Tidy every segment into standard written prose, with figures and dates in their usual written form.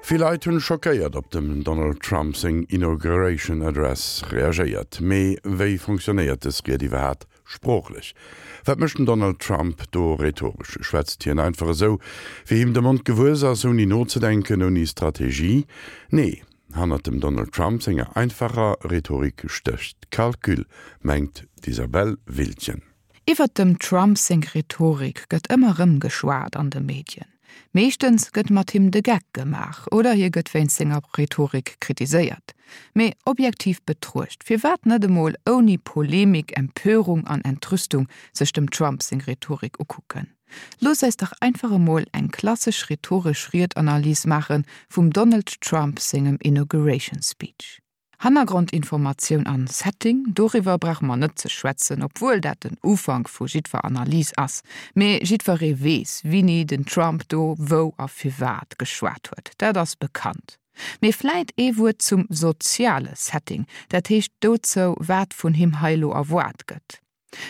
Vill Leit hunn schockéiert op dem Donald Trump seng Inauguration Address reagéiert. Mee wéi fonctionnéiert dës Ried iwwerhaat sproochlech? Wat mécht den Donald Trump do rhetoresch? Schwätzt hien einfach esou, wéi him de Mond gewuess ass, ouni nozedenken, ouni Strategie? Nee, hannert dem Donald Trump senger einfacher Rhetorik stécht Calcul, mengt d'Isabelle Wiltgen. Iwwert dem Trump seng Rhetorik gëtt ëmmer rëm geschwat an de Medien. Meeschtens gëtt mat him de Geck gemaach oder hie gëtt wéinst senger Rhetorik kritiséiert. Mee objektiv betruecht, firwat net emol ouni Polemik, Empörung an Entrüstung sech dem Trump seng Rhetorik ukucken? Loosst eis dach einfach emol eng klassesch rhetoresch Ried-Analys maache vum Donald Trump sengem Inauguration Speech. Hannergrondinformatioun an Setting, doriwwer brauche mer net ze schwätzen, obwuel dat den Ufank vu jiddwer Analys ass. Mee jiddweree weess, wini den Trump do wou a firwat geschwat huet, dat ass bekannt. Mee vläit ee Wuert zum soziale Setting, dat heescht dozou, wat vun him hei lo erwaart gëtt.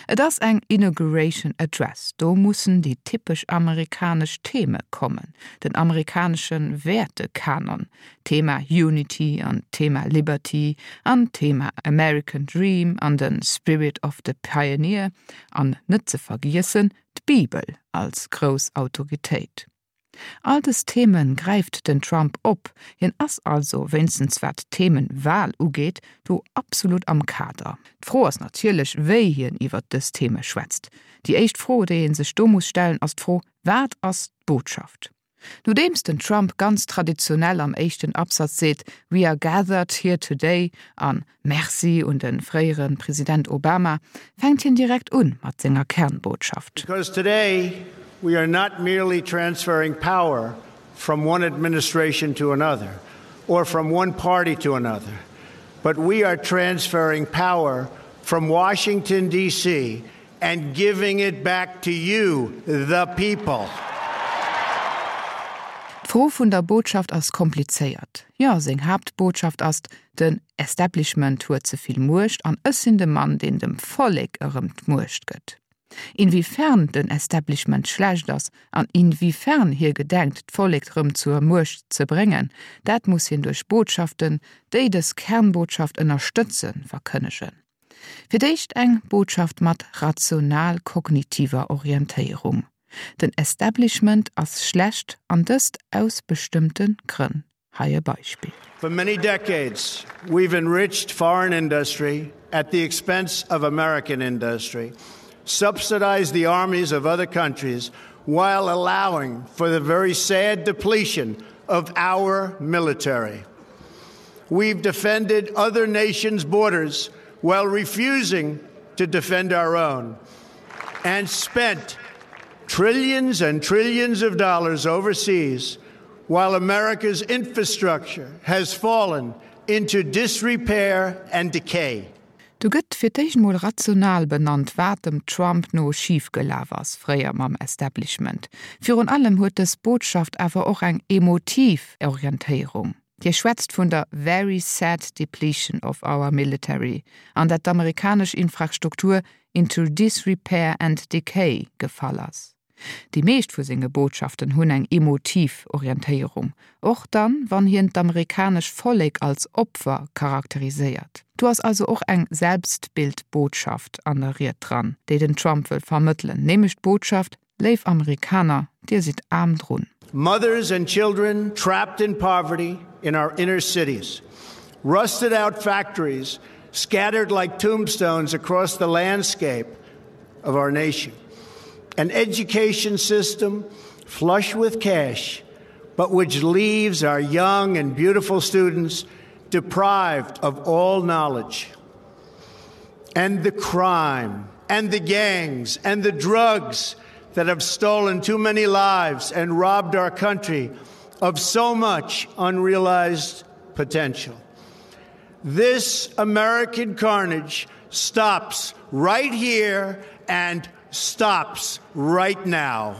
Et ass eng Inauguration Address, do mussen déi typesch amerikanesch Theme kommen, den amerikanesche Wäertekanon, d'Thema Unity an d'Thema Liberty an d'Thema American Dream an de Spirit of the Pioneer an net ze vergiessen d'Bibel als grouss Autoritéit. All dës Theme gräift den Trump op. Hien ass also, wéinstens wat d'Themenwahl ugeet, do absolut am Kader. D'Fro ass natierlech, wéi hien iwwert dës Theme schwätzt. Déi éischt Fro, déi ee sech do muss stellen, ass d'Fro, Wat ass d'Botschaft? Nodeems den Trump ganz traditionell am éischten Absatz seet, We are gathered here today an Merci un de fréiere President Obama, fänkt hien direkt un mat senger Kernbotschaft. Because today we are not merely transferring power from one administration to another or from one party to another, but we are transferring power from Washington DC and giving it back to you, the people. D'Fro vun der Botschaft ass komplizéiert. Jo, seng Haaptbotschaft ass, den Establishment huet ze vill Muecht an ech sinn de Mann, deen dem Vollek erëm d'Muecht gëtt. Inwiefern den Establishment schlecht ass an inwiefern hie gedenkt, d'Vollek rëm zur Muecht ze bréngen, dat muss hien duerch Botschaften, déi dës Kernbotschaft ënnerstëtzen, verkënnegen. Fir d'éischt eng Botschaft mat rational-kognitiver Orientéierung, Den Establishment ass schlecht an dëst aus bestëmmte Grënn. Hei e Beispill. For many decades we've enriched foreign industry at the expense of American industry, subsidized the armies of other countries while allowing for the very sad depletion of our military. We've defended other nations' borders while refusing to defend our own and spent trillions and trillions of dollars overseas while America's infrastructure has fallen into disrepair and decay. Do gëtt fir d'éischt mol rational benannt, wat dem Trump no schif gelaf ass, fréier mam Establishment. Virun allem huet dës Botschaft awer och eng emotiv Orientéierung. Hie schwätzt vun der very sad depletion of our military an dat d'amerikanesch Infrastruktur into disrepair and decay gefall ass. Déi meescht vu senge Botschaften hunn eng emotiv Orientéierung, och dann, wann hien d'amerikanesch Vollek als Opfer charakteriséiert. Do ass also och eng Selbstbildbotschaft an der Ried dran, déi den Trump wëll vermëttelen, nämlech d'Botschaft, Léif Amerikaner, dir sidd aarm drun. Mothers and children trapped in poverty in our inner cities, rusted out factories scattered like tombstones across the landscape of our nation, an education system flush with cash, but which leaves our young and beautiful students deprived of all knowledge. And the crime and the gangs and the drugs that have stolen too many lives and robbed our country of so much unrealized potential. This American carnage stops right here and stops right now.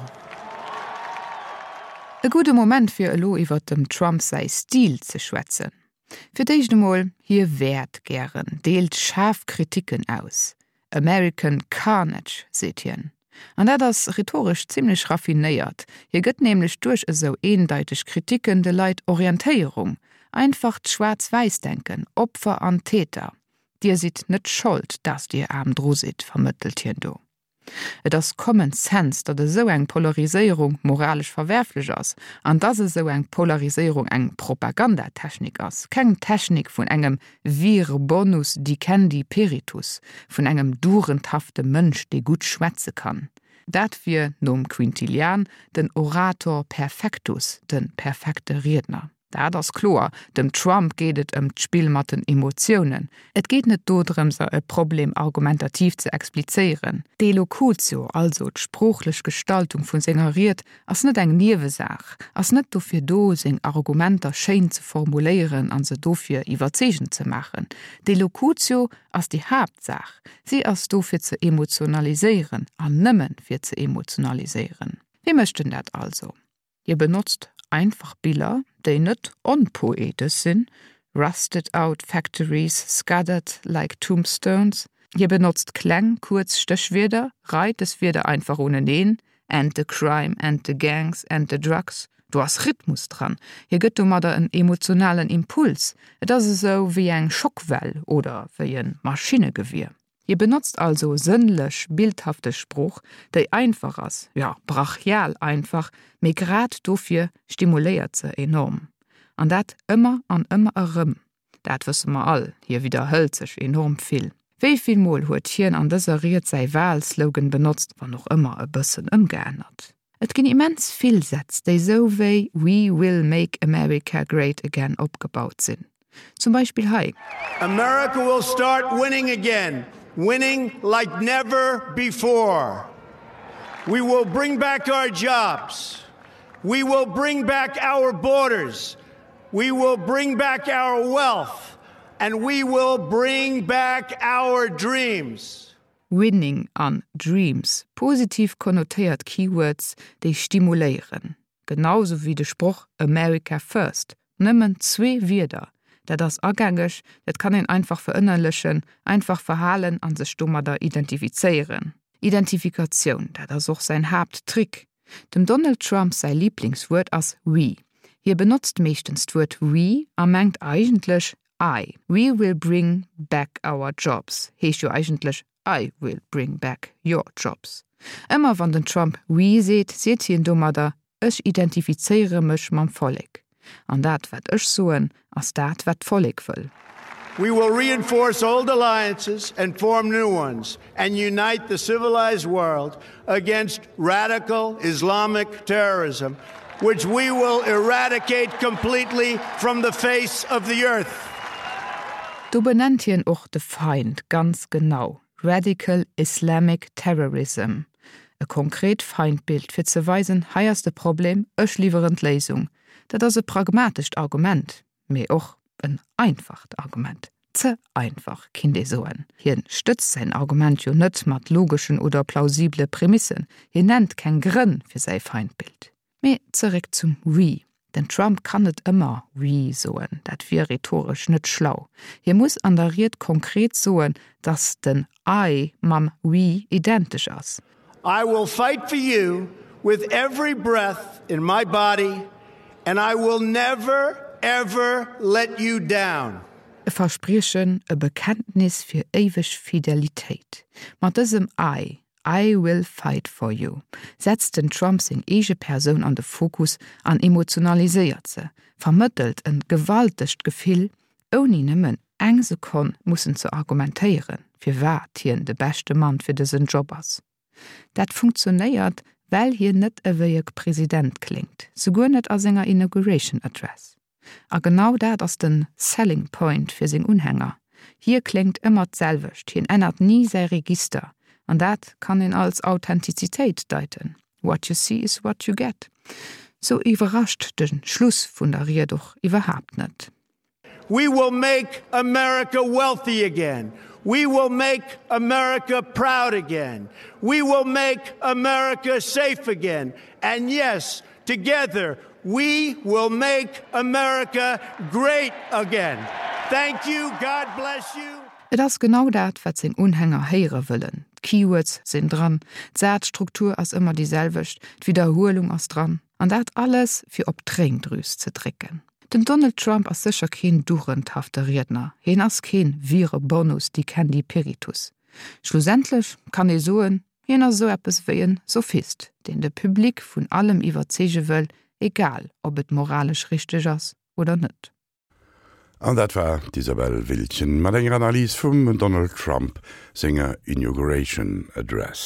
E gudde Moment fir elo iwwert dem Trump säi Stil ze schwätzen. Fir d'éischt emol, hie wäert gären, deelt schaarf Kriticken aus. American Carnage, seet hien. An dat ass rhetoresch zimmlech raffinéiert. Hie gëtt nämlech duerch esou eendeiteg Kritiken de Leit Orientéierung. Einfacht Schwaarz-Wäiss-Denken, Opfer an Täter. Dir sidd net Schold, dass Dir aarm dru sidd, vermëttelt hien do. Et ass common sense, datt esou eng Polariséierung moralesch verwerflech ass an dass esou eng Polariséierung eng Propagandatechnik ass, keng Technik vun engem vir bonus dicendi peritus, vun engem dugendhafte Mënsch, dee gutt schwätze kann. Dat wier, nom Quintilian, den orator perfectus, de perfekte Riedner. Dat ass kloer, dem Trump geet et ëm d'Spill mat den Emotiounen. Et geet net dodrëmser e Problem argumentativ ze explizéieren. D'Elocutio, also d'sproochlech Gestaltung vu senger Ried, ass net eng Niewesaach, ass net dofir do, seng Argumenter schéin ze formuléieren a se dofir iwwerzeegend ze maachen. D'Elocutio ass déi Haaptsaach, si ass do fir ze emotionaliséieren an nëmme fir ze emotionaliséieren. Wéi mécht en dat also? Hie benotzt einfach Biller, déi net onpoetesch sinn, rusted out factories scattered like tombstones. Hie benotzt kleng, kuerz Stéchwierder, reit des Wierder einfach uneneen, and the crime and the gangs and the drugs. Do ass Rhythmus dran. Hie gëtt domadder en emotionalen Impuls. Et ass esou wéi eng Schockwell oder wéi e Maschinnegewier. Hie benotzt also sënnlech, bildhafteg Sprooch, déi einfach ass, jo, brachial einfach, mee grad dofir stimuléiert se enorm. An dat ëmmer an ëmmer erëm. Dat wësse mer all, hie widderhëlt sech enorm vill. Wéi vill Mol huet hien an dëser Ried säi Wahlslogan benotzt, wann och ëmmer e bëssen ëmgeännert? Et ginn immens vill Sätz, déi sou wéi We will make America great again opgebaut sinn. Zum Beispill hei. America will start winning again, winning like never before. We will bring back our jobs. We will bring back our borders. We will bring back our wealth. And we will bring back our dreams. Winning an Dreams, positiv konnotéiert Keywords, déi stimuléieren. Genau sou wéi de Sproch America first. Nëmmen zwee Wierder. Dat ass agängeg, dat kann een einfach verënnerlechen, einfach verhalen a sech domadder identifizéieren. Identifikatioun, dat ass och säin Haapttrick. Dem Donald Trump säi Liblingswuert ass we. Hie benotzt meeschtens d'Wuert we a mengt eigentlech I. We will bring back our jobs heescht jo eigentlech I will bring back your jobs. Ëmmer wann den Trump we seet, seet hien domadder ech identifizéiere mech mam Vollek. An dat wat ech soen, ass dat wat d'Vollek wëll. We will reinforce old alliances and form new ones and unite the civilized world against radical Islamic terrorism, which we will eradicate completely from the face of the earth. Do benennt hien och de Feind ganz genau, Radical Islamic Terrorism. E konkret Feindbild, fir ze weisen, hei ass de Problem, ech liwweren d'Léisung. Dat ass e pragmatescht Argument, mee och en einfacht Argument. Ze einfach, kinnt ee soen. Hien stëtzt säin Argument jo net mat logeschen oder plausibele Prämissen. Hien nennt keng Grënn fir säi Feindbild. Mee zeréck zum We. Den Trump kann net ëmmer We soen, dat wier rhetoresch net schlau. Hie muss an der Ried konkret soen, datt den I mam We identesch ass. I will fight for you with every breath in my body and I will never, ever let you down. E Verspriechen, e Bekenntnis fir éiweg Fidelitéit. Mat dësem I I will fight for you setzt den Trump seng eege Persoun an de Fokus an emotionaliséiert se, vermëttelt en gewaltegt Gefill, ouni nëmmen eng Sekonn mussen ze argumentéieren, firwat hien de beschte Mann fir dësen Job ass. Dat funktionéiert, well hien net ewéi e President kléngt, souguer net a senger Inauguration Address. A genau dat ass den Selling Point fir seng Unhänger, hie kléngt ëmmer d'selwecht, hien ännert ni säi Register, an dat kann een als Authentizitéit deiten, What you see is what you get. Sou iwwerrascht de Schluss vun der Ried och iwwerhaapt net. We will make America wealthy again. We will make America proud again. We will make America safe again. And yes, together we will make America great again. Thank you. God bless you. Et ass genau dat, wat seng Unhänger héiere wëllen. D'Keywords sinn dran, d'Sazstruktur ass ëmmer déi selwecht, d'Widderhuelung ass dran. An dat alles, fir op d'Tréindrüs ze drécken. Den Donald Trump ass sécher keen dugendhafte Riedner, hien ass keen vire bonus dicendi peritus. Schlussendlech kann ee soen, hien ass esou eppes wéi en Sophist, deen de Public vun allem iwwerzeege wëll, egal ob et moralesch richteg ass oder net. An dat war d'Isabelle Wiltgen mat enger Analys vum Donald Trump senger Inauguration Address.